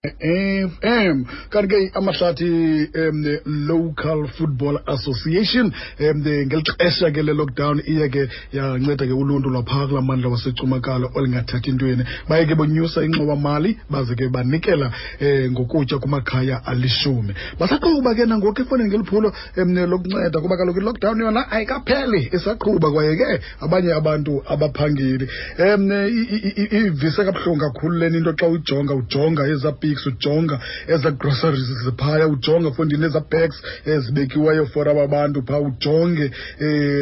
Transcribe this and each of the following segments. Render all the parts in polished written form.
FM. Kanti ke Amahlathi Local Football Association ngeli xesha ke le-lockdown iye ke yanceda ke uluntu lwaphaa kulaa mandla waseCumakala olingathathi ntweni. Baye ke bonyusa ingxowamali baze ke banikela ngokutya kumakhaya alishumi. Basaqhuba ke nangoku efowunini ngeli phulo lokunceda kuba kaloku i-lockdown yona ayikapheli, isaqhuba kwaye ke abanye abantu abaphangeli. Ivise kabuhlungu kakhulu lena into xa ujonga ujonga ezaa pics, ujonga ezaa groceries ziphaya, ujonga fondini ezaa bags ezibekiweyo for aba bantu phaa, ujonge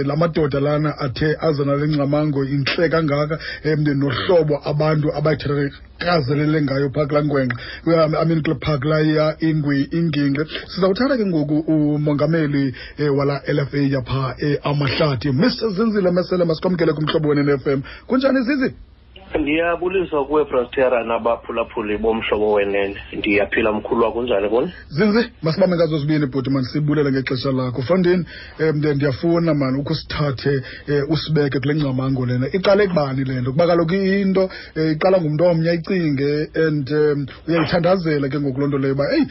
la madoda lana athe aza nale ngcamango intle kangaka, nohlobo abantu abayithatha ngayo phaa kulaa ngwenxa, I mean kule phaa kulaya ingingqi. Sizawuthatha ke ngoku umongameli wala LFA yapha Amahlathi, Mr Zinzile Mesele. Masikwamkele kumhlobo Wenene FM. Kunjani, Zizi? Ndiyabulisa kuwe, Brastera, nabaphulaphuli boMhlobo Wenene. Ndiyaphila, mkhulu. Kunjani kuni? Zinzi, masibambe ngazo zibini, bhuti. Mani sibulele ngexesha lakho, fondini. Ndiyafuna mani ukusithathe usibeke kule ngcamango lena. Iqale kubani le nto? Kuba kaloku into iqala ngumntu omnye ayicinge and uyayithandazela ke ngoku loo nto leyo uba eyi,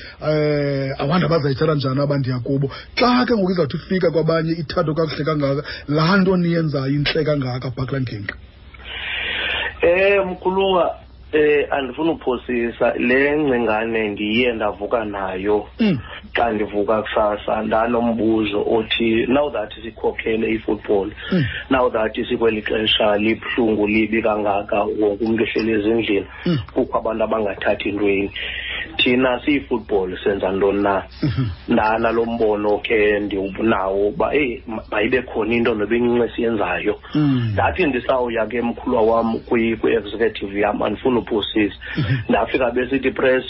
awanda bazayithatha njani abandiya kubo. Xa ke ngoku izawuthi ifika kwabanye ithathwe kakuhle kangaka, laa nto niyenzayo intle kangaka phaa kulaa ngingqi. Mkhuluwa, andifuna uphosisa. Le ngcingane ndiye ndavuka nayo. Xa ndivuka kusasa ndanombuzo othi, now that sikhokhele i-football, now that sikweli xesha libuhlungu, libi kangaka, wonke umntu ehleli ezindlini, kukho abantu abangathathi ntweni, thina siyi-football senza ntoni na? Ndanalo mbono ke ndiwunawo uba eyi, mayibe khona into noba incinci esiyenzayo. Ndathi ndisawuya ke, mkhulwa wam, kwi-executive yam, andifuni uphosisa, ndafika besithi press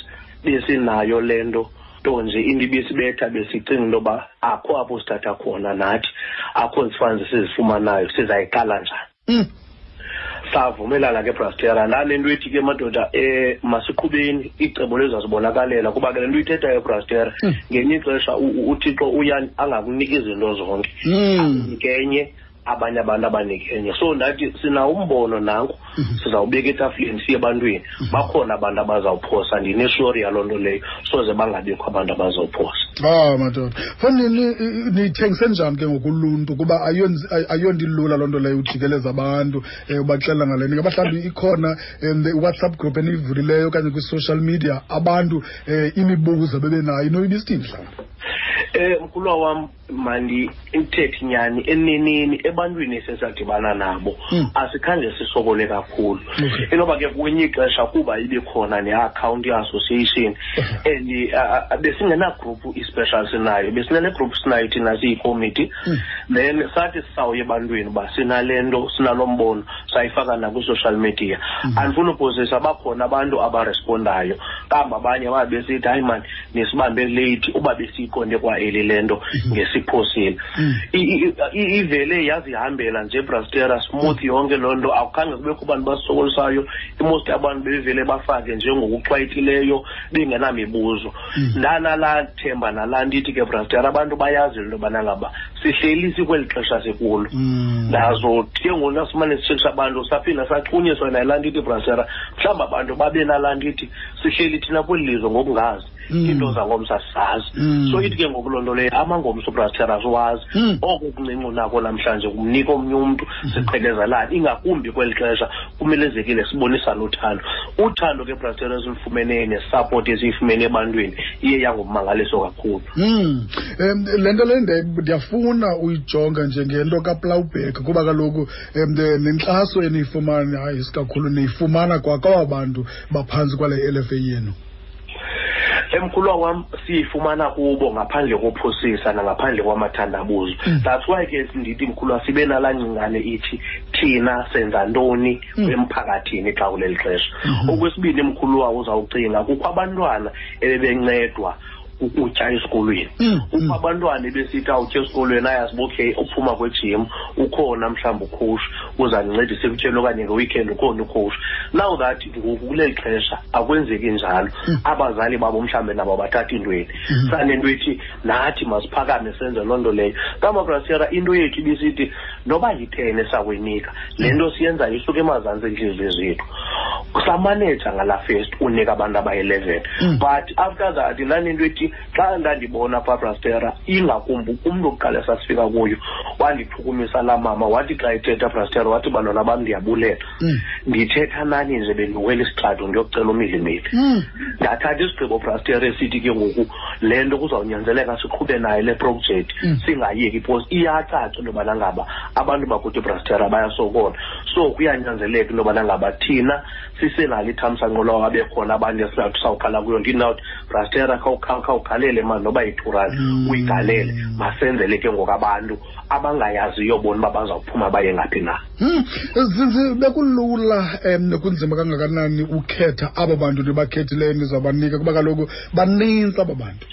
besinayo le nto, nto nje into ibisibetha, besicinga into yoba akho apho sithatha khona nathi, akho zifunds sizifumanayo, sizayiqala njani? Savumelana ke, Brastera, ndanento ethi ke, madoda, masiqhubeni, icebo lizazibonakalela, kuba ke le nto uyithethayo, Brastera, ngenye ixesha uThixo uya angakuniki izinto zonke, akunike enye, abanye abantu abanike enye. So ndathi sinawo umbono nanku, sizawubeka etafileni, siye ebantwini. Bakhona abantu abazawuphosa, ndinesure yaloo nto leyo, soze bangabikho abantu abazawuphosa. Ah madoda, fondini, niyithengise njani ke ngokuluntu? Kuba ayonto ilula loo nto leyo, ujikeleza abantu ubaxelela ngale nto. Ingaba mhlawumbi ikhona i-WhatsApp group eniyivulileyo okanye kwi-social media, abantu imibuzo bebenayo inoyibisithini mhlawumbi? Mkhulwa wam, mandithethe inyani, eneneni ebantwini esesadibana nabo, asikhange sisokole kakhulu. Inoba ke kwenye ixesha kuba ibe khona ne-akhawunti ye-association and besingenagroup i-special sinayo, besinale group sinayo thina siyikomiti. Then sathi sisawuya ebantwini uba sinale nto, sinalo mbono, sayifaka nakwi-social media. Andifuni uphosisa, bakhona abantu abarespondayo, kambe abanye babe besithi, "Hayi mani, nisibambe late, uba besiyiqonde kwa eli le nto ngesiphosile." Ivele yazihambela nje, Brastera, smooth yonke loo nto. Akukhange kubekho bantu basokolisayo. I-most abantu bebevele bafake nje ngokuchwayitileyo bengenamibuzo. Ndanalaa themba nalaa nto ithi ke, Brastera, abantu bayazi into yobana ngaba sihleli sikweli xesha sikulo. Nazo ke ngoku nasimane sitshekisha abantu, saphinda sachunyiswa nayilaa nto ithi, Brastera, mhlawumbi abantu babe nalaa nto ithi sihleli thina kweli lizwe ngokungazi iinto zangomso asizazi. So ithi ke ngoku loo nto leyo, amangomso, Brastera, asiwazi. Oko kuncinci unako namhlanje kumnika omnye umntu, siqhelezelane, ingakumbi kweli xesha kumelezekile sibonisane uthando. Uthando ke, Brastera, esilufumeneyo nesapoti esiyifumene ebantwini iye yangummangaliso kakhulu. Le nto le ndiyafuna uyijonga njengento kaPlowback, kuba kaloku nenkxaso eniyifumana, hayi isikakhulu niyifumana kwakwaba bantu baphantsi kwale LFA yenu. Emkhulwa wam, siyifumana kubo ngaphandle kophosisa nangaphandle kwamathandabuzo. That's why ke ndithi, mkhulwa, sibe nalaa ngcingane ithi thina senza ntoni emphakathini xa kuleli xesha. Okwesibini, mkhulwa, uzawucinga kukho abantwana ebebencedwa. Ukutya esikolweni, Kukho abantwana ebesithi awutya esikolweni, ayazi uba okay, uphuma kwejim ukhona mhlawumbi ucoach uzandincedisa ekutyeni, okanye ngeweekend ukhona ucoach. Now that ngoku kuleli xesha akwenzeki njalo, abazali babo mhlawumbi nabo bathatha intweni. Sanento ethi nathi masiphakame senze loo nto leyo. Kamabrasera, into yethu ibisithi noba yi-10 esakuyinika le nto siyenzayo isuka emazantsi entliziyo zethu. Samaneja ngalaa first unika abantu abayi-11, but after that ndanento ethi xa ndandibona phaa, Brastera, ingakumbi umntu wokuqala esasifika kuyo, wandichukumisa laa mama. Wathi xa ethetha, Brastera, wathi, "Bantwana bam, ndiyabulela. Ndithetha nani nje bendiwela isitrato ndiyokucela umilimili." Ndathatha isigqibo, Brastera, esithi ke ngoku le nto kuzawunyanzeleka siqhube nayo le project, singayeki because iyacaca into yobana ngaba abantu bakuthi, Brastera, bayasokola. So kuyanyanzeleka into yobana ngaba thina sisenalo ithamsanqo lawo abekhona abantu esizawuthi sawukhala kuyo. Ndinawuthi, Brastera, khawugalele mani noba yi-2 rand, uyigalele, masenzele ke ngoku abantu abangayaziyo bona uba bazawuphuma baye ngaphi na. Zinzi, bekulula kunzima kangakanani ukhetha abo bantu nibakhethileyo nizabanika, kuba kaloku banintsi aba bantu?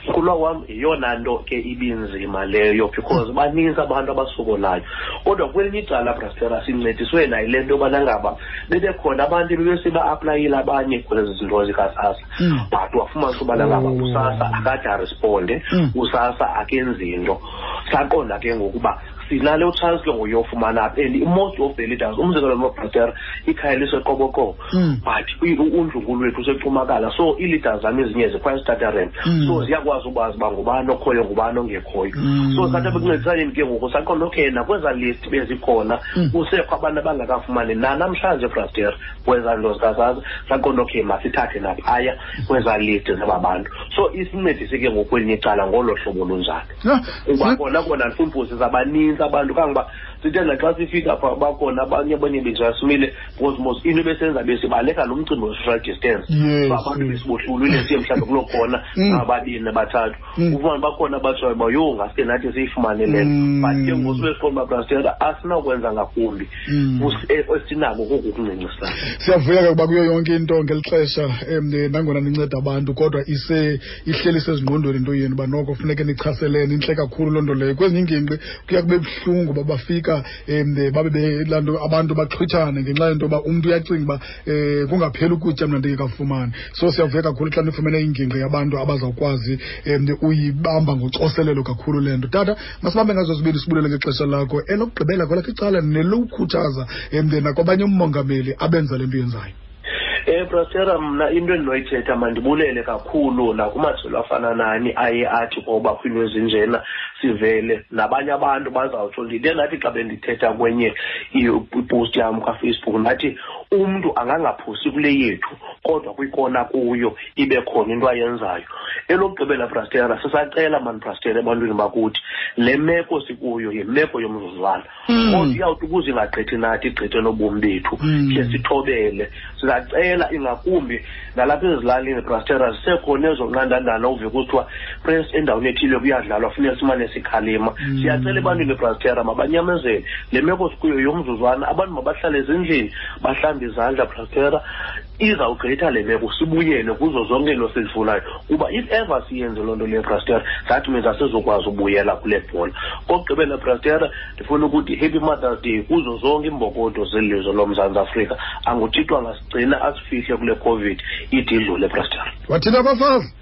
Mkhulwa wam, yeyona nto ke ibinzima leyo because baninzi abantu abasokolayo. Kodwa kwelinye icala, Brastera, sincediswe nayo le nto yobana ngaba bebekhona abantu ebebesiba-aplayile abanye kwezi zinto zikaSASSA, but wafumanisa ubana ngaba uSASSA akade aresponde, uSASSA akenzi nto. Saqonda ke ngokuba sinale chance ke ngoyofumana apha, and most of the leaders, umzekelo nobrastera, ikhaya liseQoboqobo, but undlunkulu wethu useCumakala, so ii-leaders zam ezinye zikhwaya eStutterheim, so ziyakwazi ukwazi uba ngubani okhoyo, ngubani ongekhoyo. So sathi ekuncedisaneni ke ngoku saqonda okay, nakwezaa list bezikhona kusekho abantu abangakafumani nanamhlanje, Braster, kwezaa nto zikaSASSA. Saqonda okay, masithathe naphaya kwezaa list zaba bantu. So isincedise ke ngokwelinye icala ngolo hlobo lunjalo, kuba kona kona ndifuna uphosisa, abanintsi abantu kangoba sithe naxa sifika phaa bakhona abanye benjasimile because mos into ebesenza besibaleka lo mcimbi we-social distance. So abantu besibohlulile, siye mhlawumbi kuloo khona ababini, abathathu, ufumane bakhona abatshoyo uba yho, ngaske nathi siyifumane le nto. But ke ngoku sibe siqonda uba, Brastera, asinakwenza ngakumbi, esinako koku kuncincisana. Siyavuya ke kuba kuyo yonke into ngeli xesha, nangona ninceda abantu, kodwa ise ihleli sezingqondweni into yenu uba noko funeke nichaselene. Intle kakhulu loo nto leyo. Kwezinye iingingqi kuya kube buhlungu uba bafika babe belaa nto abantu baxhwithane ngenxa yento yoba umntu uyacinga uba kungapheli ukutya mna ndingekafumani. So siyavuya kakhulu xa nifumene ingingqi yabantu abazawukwazi uyibamba ngocoselelo kakhulu le nto. Tata, masibambe ngazo zibini, sibulele ngexesha lakho. Elokugqibela kwelakho icala nelokukhuthaza nakwabanye umongameli abenza le nto yenzayo. Brastera, mna into endinoyithetha, mandibulele kakhulu nakumajelo afana nani aye athi koba kwiinto ezinjena sivele nabanye abantu bazawutsho. Ndide ndathi xa bendithetha kwenye ipost yam kaFacebook, ndathi umntu angangaphosi kule yethu, kodwa kwikona kuyo ibe khona into ayenzayo. Elokugqibela, Brastera, sisacela mani, Brastera, ebantwini bakuthi le meko sikuyo yimeko yomzuzwana, kodwa iyawuthi ukuze ingagqithi nathi, igqithe nobomi bethu, khe sithobele. Sizacela ingakumbi nalapha ezilalini, Brastera, zisekhona ezo nqandandana uve kuthiwa press endaweni ethile kuyadlalwa, funeka simane sikhalima. Siyacela ebantwini, Brastera, mabanyamezele le meko sikuyo yomzuzwana. Abantu mabahlale ezindlini, bahlambe izandla, Brastera. Izawugqitha le meko, sibuyele kuzo zonke into sizifunayo, kuba if ever siyenze loo nto leyo, Brastera, that means asizokwazi ubuyela kule bhola. Kokugqibela, Brastera, ndifuna ukuthi happy Mother's Day kuzo zonke iimbokodo zelizwe loMzantsi Afrika. Anguthixo angasigcina, asifihle kule COVID, ide idlule, Brastera. Wathinta abafazi.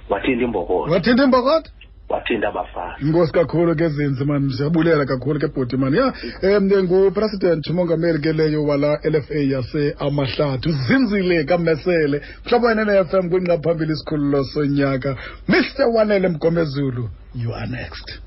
Wathinta imbokodo. Wathinta imbokodo. Wathinta abafazi. Inkosi kakhulu ke Zinzi mani, siyabulela kakhulu ke bhuti mani. Ya, ngupresident umongameli ke leyo wala LFA yase Amahlathi, uZinzile kaMesele. Mhlobo wenene FM, kwingqa phambili isikhululo sonyaka, Mr Wanele Mgomezulu, you are next.